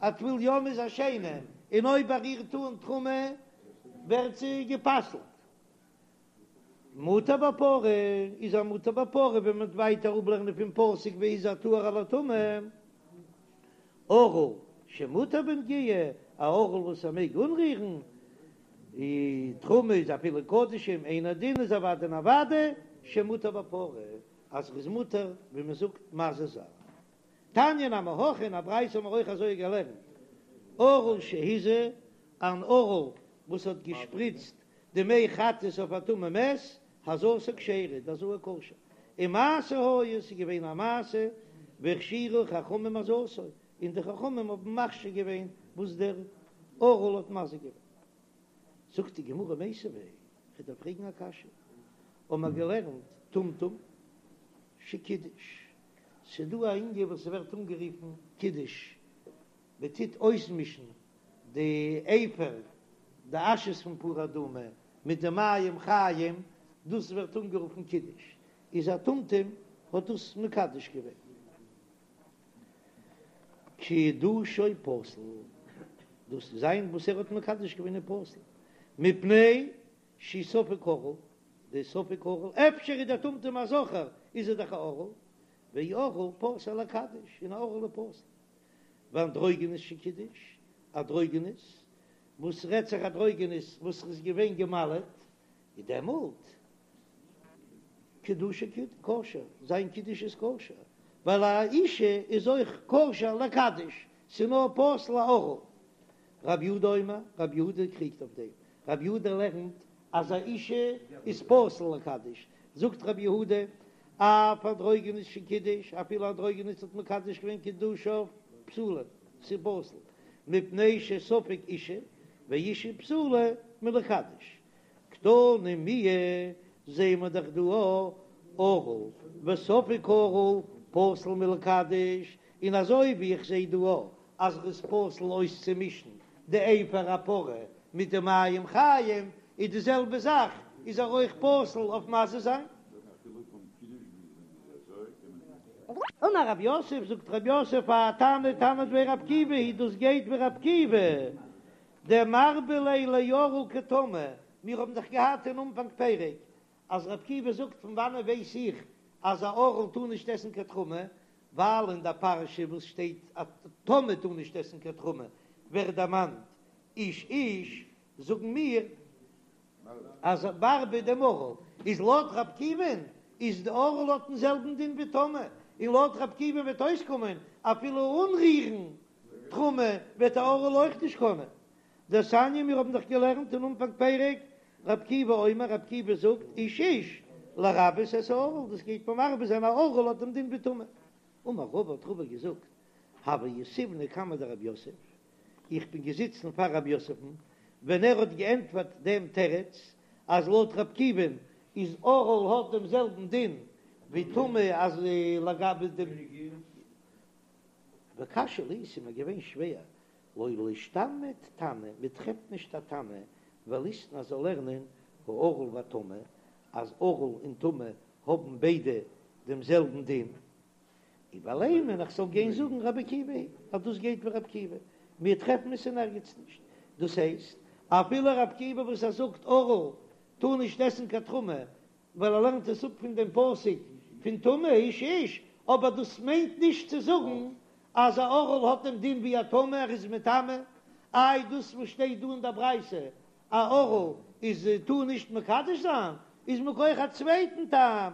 א טבול יום איז א שני, און אויב ער רירט אן תרומה ווערט זי גע'פסל'ט. מותר בפרה איז ער מותר בפרה ווען מען וועט ווייטער אפלערנען פון פסוק והזה הטהור על הטמא. ערל שמותר בנגיעה, א ערל וואס ער מעג אנרירן די תרומה איז אפילו קדשים, אינו דין איז אוודאי און אוודאי שמותר בפרה אז ער איז מותר ווי מען זאגט מזה זיין. תניא נמי הכי, אין א ברייתא האבן מיר אויך אזוי געלערנט, ערל שהזה, אן ערל וואס האט געשפריצט די מי חטאת אויף א טמא מת, הזאתו כשרה, די הזאה כשר, ומעשה היה, ס'איז געווען א מעשה, והכשירו חכמים הזאתו, און די חכמים האבן מכשיר געווען וואס דער ערל האט מזה געווען. זאגט די גמרא מיתיבי, כ'דארף פרעגן א קשיא, האבן מיר געלערנט טומטום שקידש, ס'דא א ענין וואס ס'ווערט אנגערופן קידוש, מ'טוט אויסמישן די אפר, די אשעס פון פרה אדומה, מיט די מים חיים, דאס ווערט אנגערופן קידוש, איז א טומטום האט דאס מקדש געווען. קידושו פסול, דאס זיין וואס ער האט מקדש געווען איז פסול, מפני שהוא ספק ערל, די ספק ערל, אפשר איז דער טומטום א זכר, איז ער דאך א ערל, וערל פסול לקדש, און א ערל איז פסול. ואנדרוגינוס שקידש, אנדרוגינוס, וואס רעדט זיך אנדרוגינוס וואס איז געווען געמל'עט, איז דעמאלט קידושו כשר, זיין קידוש איז כשר, ווייל א אישה איז אויך כשר לקדש, ס'איז נאר פסול א ערל. רב יהודה אומר, רב יהודה קריגט אויף דעם, רב יהודה לערנט. אז א אישה איז פסול לקדש, זאגט רבי יהודה, אף אנדרוגינוס שקידש, אפילו אנדרוגינוס האט מקדש געווען קידושיו פסולים, ס'איז פסול, מפני שספק אישה, ואישה פסולה מלקדש. קתני מיהא, זעהן מיר דאך דא ערל וספק ערל פסול מלקדש, און אזוי ווי איך זעה דא אז ר'איז פסול אויסצומישן די אפר הפרה מיט די מים חיים, איז די זעלבע זאך איז ער אויך פסול אויף מזה זיין. אמר רב יוסף, זאגט רב יוסף האי תנא תנא דבי רב עקיבא היא דאס גייט ווי רב עקיבא דמרבה ליה לערל כטמא, מיר האבן דאך געהאט אין אנפאנג פרק אז רב עקיבא זאגט פון וואנען ווייס איך אז א ערל טאר נישט עסן קיין תרומה, ווייל אין דער פרשה וואס שטייט א טמא טאר נישט עסן קיין תרומה ווערט דערמאנט איש איש, זאגן מיר אז מרבה דעם ערל איז לויט רב עקיבא'ן איז די ערל האט דעם זעלבן דין ווי טמא, און לויט רב עקיבא'ן וועט אויסקומען אפילו אנרירן תרומה וועט א ערל אויך נישט קענען. דתניא מיר האבן דאך געלערנט אין אנפאנג פרק רב עקיבא אומר רב עקיבא זאגט איש איש לרבות את הערל דאס גייט מרבה זיין א ערל האט דעם דין ווי טמא. אמר רבא האט רבא געזאגט הוה יתיבנא קמיה דרב יוסף איך בין געזיצן פאר רב יוסף'ן ווען ער האט געענטפערט דעם תירוץ אז לויט רב עקיבא'ן איז ערל האט דעם זעלבן דין ווי טמא אז לגבי דעם וקשיא לי ס'איז מיר געווען שווער לא לישתמיט תנא מען טרעפט נישט א תנא וליתני זאל לערנען הערל והטמא אז ערל און טמא האבן ביידע דעם זעלבן דין ולימא איך זאל גיין זאגן רבי עקיבא היא אז דאס גייט ווי רבי עקיבא מיר טרעפן עס אין ערגעץ נישט דאס הייסט אפילו רבי עקיבא וואס ער זאגט ערל טאר נישט עסן קיין תרומה ווייל ער לערנט עס אפ פון דעם פסוק פון טמא איש איש, אבער דאס מיינט נישט צו זאגן אז א ערל האט דעם דין ווי א טמא, ער איז מטמא, איי דאס וואס שטייט דא אין דער ברייתא א ערל איז טאר נישט מקדש זיין, איז מכח א צווייטן טעם,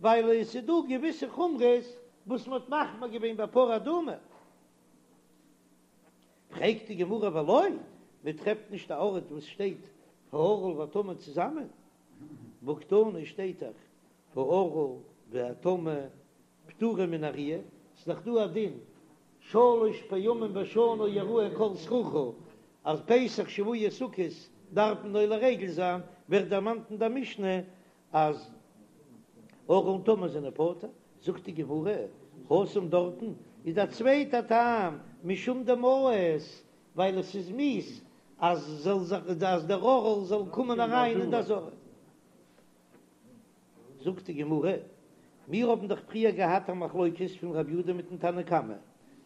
ווייל עס איז דא געוויסע חומרות וואס מען האט מחמיר געווען ביי פרה אדומה. פרעגט די גמרא ולא, מען טרעפט נישט א ארט וואס שטייט הערל והטמא צוזאמען, והקתני שטייט דאך הערל והטמא פטורים מן הראיה, ס'איז דאך דא א דין שלש פעמים בשנה יראה כל זכורך אז פסח שבועות סוכות דארף מען עולה רגל זיין, ווערט דערמאנט אין דער משנה אז ערל און טמא זענען פטור, זאגט די גמרא, התם דארטן איז א צווייטע טעם, משום דמאיס, ווייל עס איז מיאוס אז זאל זיך אז דער ערל זאל קומען אריין אין די עזרה. זאגט די גמרא, מיר האבן דאך פריער געהאט א מחלוקת פון רב יודא מיטן תנא קמא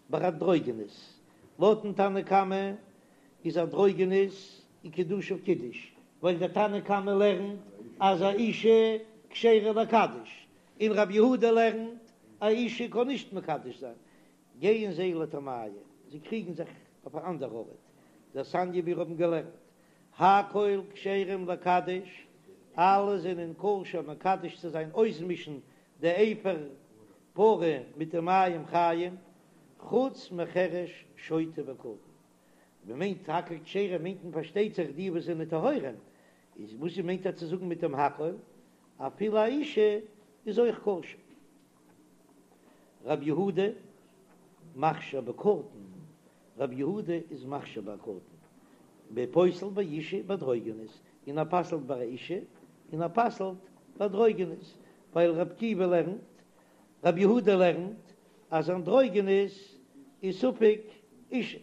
ביי אנדרוגינוס, לויטן תנא קמא איז אנדרוגינוס איז קידושיו קידוש, ווייל דער תנא קמא לערנט אז א אישה כשרה לקדש, און רב יהודה לערנט א אישה קען נישט מקדש זיין, גייען זיי לטעמייהו, זיי קריגן זיך אויף א אנדער ארט, דתניא מיר האבן געלערנט הכל כשרים לקדש, אלע זענען כשר מקדש צו זיין אויסמישן די אפר פרה מיט די מים חיים, חוץ מחרש שוטה וקטן. מען מיינט הכל כשרים מיינט מען פארשטייט זיך די וואס זענען טהורים, איז וואס מיינט ער צו זאגן מיט דעם הכל? אפילו א אישה איז אויך כשר. רב יהודה מכשיר בקטן, רב יהודה איז מכשיר ביי קטן, ופוסל באישה ובאנדרוגינוס, און ער פסל'ט ביי א אישה און ער פסל'ט ביי אנדרוגינוס, ווייל רב עקיבא לערנט, רב יהודה לערנט אז אנדרוגינוס איז ספק אישה.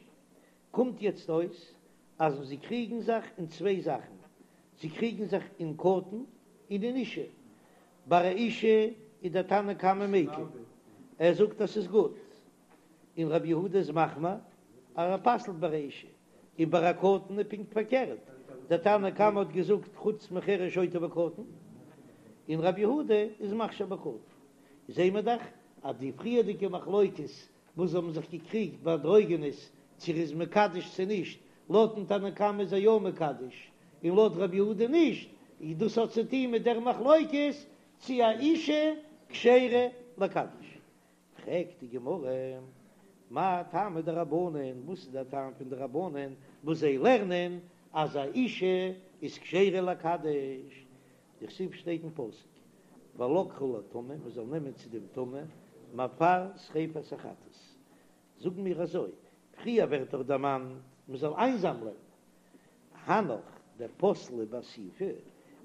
קומט יעצט אויס אז זיי קריגן זיך אין צוויי זאכן, זיי קריגן זיך אין קטן און אין אישה. ביי א אישה איז דער תנא קמא מיקל, ער זאגט אז ס'איז גוט, און רבי יהודה איז מחמיר אז ער פסל'ט ביי א אישה, און ביי א קטן איז פונקט פארקערט, דער תנא קמא האט געזאגט חוץ מחרש שוטה וקטן, און רבי יהודה איז מכשיר בקטן. זעהן מיר דאך אז די פריערדיגע מחלוקת וואס זיי האבן זיך געקריגט ביי אנדרוגינוס צו ער איז מקדש צו נישט, לויטן תנא קמא איז ער יא מקדש און לויט רבי יהודה נישט, איז דאס האט צו טון מיט דער מחלוקת צו א אישה כשרה לקדש. פרעגט די גמרא, מאי טעמא דרבנן, וואס איז דער טעם פון די רבנן וואס זיי לערנען א. אז א אישה איז כשרה לקדש, דכתיב שטייט אין פסוק ולקחו לטמא, מען זאל נעמען צו דעם טמא מעפר שריפת החטאת, זאגן מיר אזוי, פריער ווערט דאך דערמאנט מען זאל איינזאמלען, הנך דפסלי באסיפה,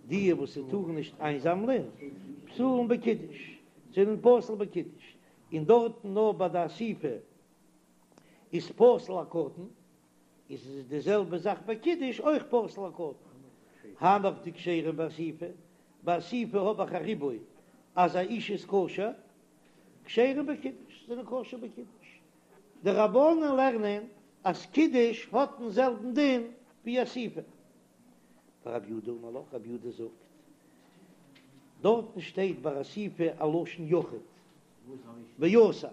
די וואס טארן נישט איינזאמלען, פסולין בקידוש, זענען פסול בקידוש, און דארטן נאר ביי די אסיפה איז פסול א קטן, איז עס די זעלבע זאך ביי קידוש אויך פסול א קטן. הנך דכשרים באסיפה, ביי אסיפה האב איך א ריבוי אז א אישה איז כשר, כשרים בקידוש זענען כשר בקידוש. די רבנן לערנען אז קידוש האט דעם זעלבן דין ווי אסיפה. ורב יהודה אמר לך, רב יהודה זאגט, דארטן שטייט ביי אסיפה א לשון יחיד, ואסף,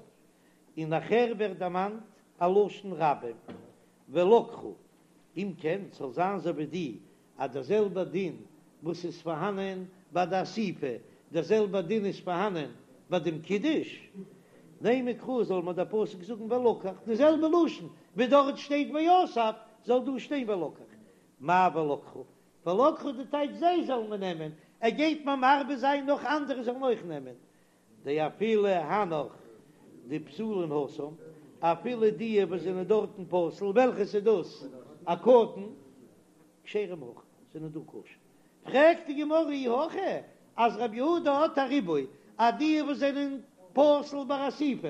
און נאכער ווערט דערמאנט א לשון רבים, ולקחו, אם כן זאל זיין אזוי ווי די אז דער זעלבער דין וואס איז פארהאנען ביי די אסיפה, דער זעלבער דין איז פארהאנען ביי דעם קידוש, נימא קרא זאל מיר דער פסוק זאגן ולקח, די זעלבע לשון ווי דארט שטייט ואסף זאל דא שטיין ולקח, מאי ולקחו? ולקחו די טייטש זיי זאלן מיר נעמען, ער גייט מיר מרבה זיין נאך אנדערע זאלן אויך נעמען, דאפילו הנך דפסולין התם, אפילו די וואס זענען דארטן פסול, וועלכעס איז דאס? א קטן, כשרים הכא, זענען דא כשר. פרעגט די גמרא אי הכי, אז רבי יהודה האט א ריבוי, אז די וואס זענען פסול ביי אסיפה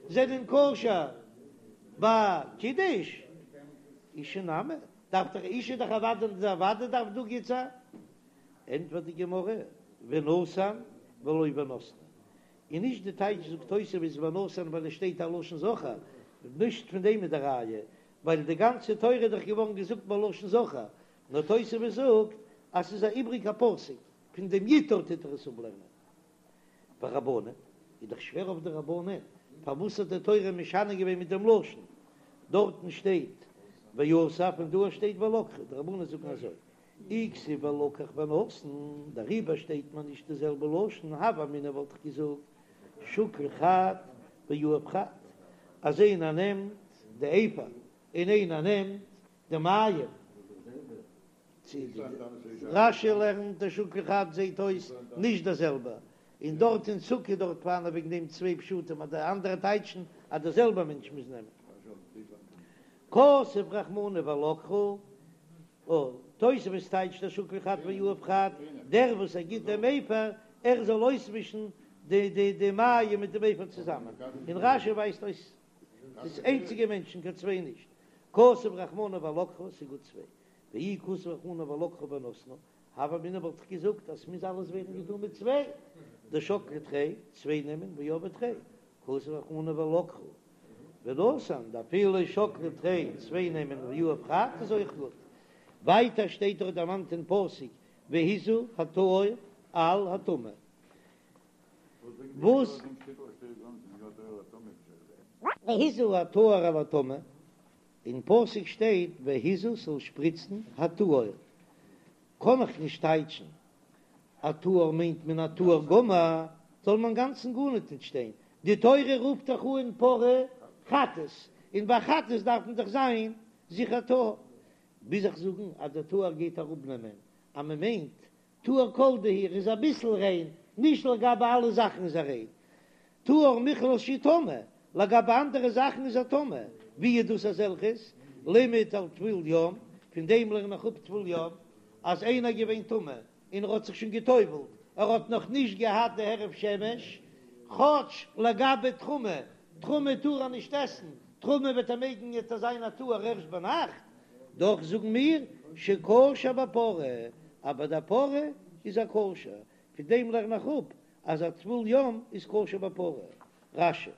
זענען כשר ביי קידוש, אשה נמי, דארף דאך אשה דאך אוודאי אוודאי דארף דא גוט זיין. ענטפערט די גמרא, ונתן ולא ונתנה, און נישט די טייטש זאגט תוספות ונתן ווייל עס שטייט א לשון זכר, נישט פון דעם איז די ראיה, ווייל די גאנצע תורה איז דאך געווארן געזאגט בלשון זכר, נאר תוספות זאגט אז ס'איז א איבריגע פסוק, פון דעם יטהר טוט ער עס אפלערנען. ורבנן, איז דאך שווער אויף די רבנן, פארוואס האט די תורה משנה געווען מיט דעם לשון? דארטן שטייט ואסף און דא שטייט ולקחו, די רבנן זאגן אזוי, אי כתיב ולקח ונתן, דעריבער שטייט מיר נישט די זעלבע לשון, הוה אמינא וואלט איך געזאגט שקיל חד ויהיב חד, אז איינער נעמט די אפר און איינער נעמט די מים. רש"י לערנט דשקיל חד זעהט אויס נישט די זעלבע, און דארט אין סוכה דארט פארהאן וועגן דעם צוויי פשטים אז די אנדערע טייטשן אז די זעלבע מענטש מוז נעמען. כתב רחמנא ולקחו, תוספות טייטשט דשקיל חד ויהיב חד, דער וואס ער גיט דעם אפר, ער זאל אויסמישן די די די מים מיט דעם אפר צוזאמען, און רש"י ווייזט אויס ס'איז איינציגע מענטשן קיין צוויי נישט, כתב רחמנא ולקחו ס'איז גוט צוויי, ואי כתב רחמנא ולקחו ונתנו, הוה אמינא וואלט איך געזאגט אז ס'מוז אלעס ווערן געטון מיט צוויי, דשקלי תרי, צוויי נעמען ויהבי תרי, כתב רחמנא ולקחו ונתן, דאפילו שקלי תרי, צוויי נעמען ויהיב חד איז אויך גוט. ווייטער שטייט דאך דערמאנט אין פסוק והזה הטהור על הטמא. וואס? והזה הטהור על הטמא, אין פסוק שטייט והזה ס'זאל שפריצן הטהור, קען איך נישט טייטשן א טהור מיינט מען א טהור גמור, זאל מען אינגאנצן גארניט נישט שטיין, די תורה רופט דאך אן פרה חטאת, און ביי חטאת דארף מען דאך זיין זיכער טהור, מוז איך זאגן אז דער טהור גייט אראפנעמען אז מען מיינט טהור כל דהו ער איז אביסל ריין, נישט לגבי אלע זאכן איז ער ריין, טהור מכלל שהוא טמא, לגבי אנדערע זאכן איז ער טמא, ווי איז דאס אזעלכעס? לימד על טבול יום, פון דעם לערן איך אפ טבול יום, אז איינער איז געווען טמא און ער האט זיך שוין גע'טובל'ט, ער האט נאך נישט געהאט די הערב שמש, כאטש לגבי תרומה, תרומה טאר ער נישט עסן, תרומה וועט ער מעגן וועט ער זיין א טהור ערשט ביינאכט, דאך זאגן מיר שכשר בפרה, אז ביי די פרה איז ער כשר, פון דעם לערן איך אפ אז א טבול יום איז כשר בפרה. רש"י.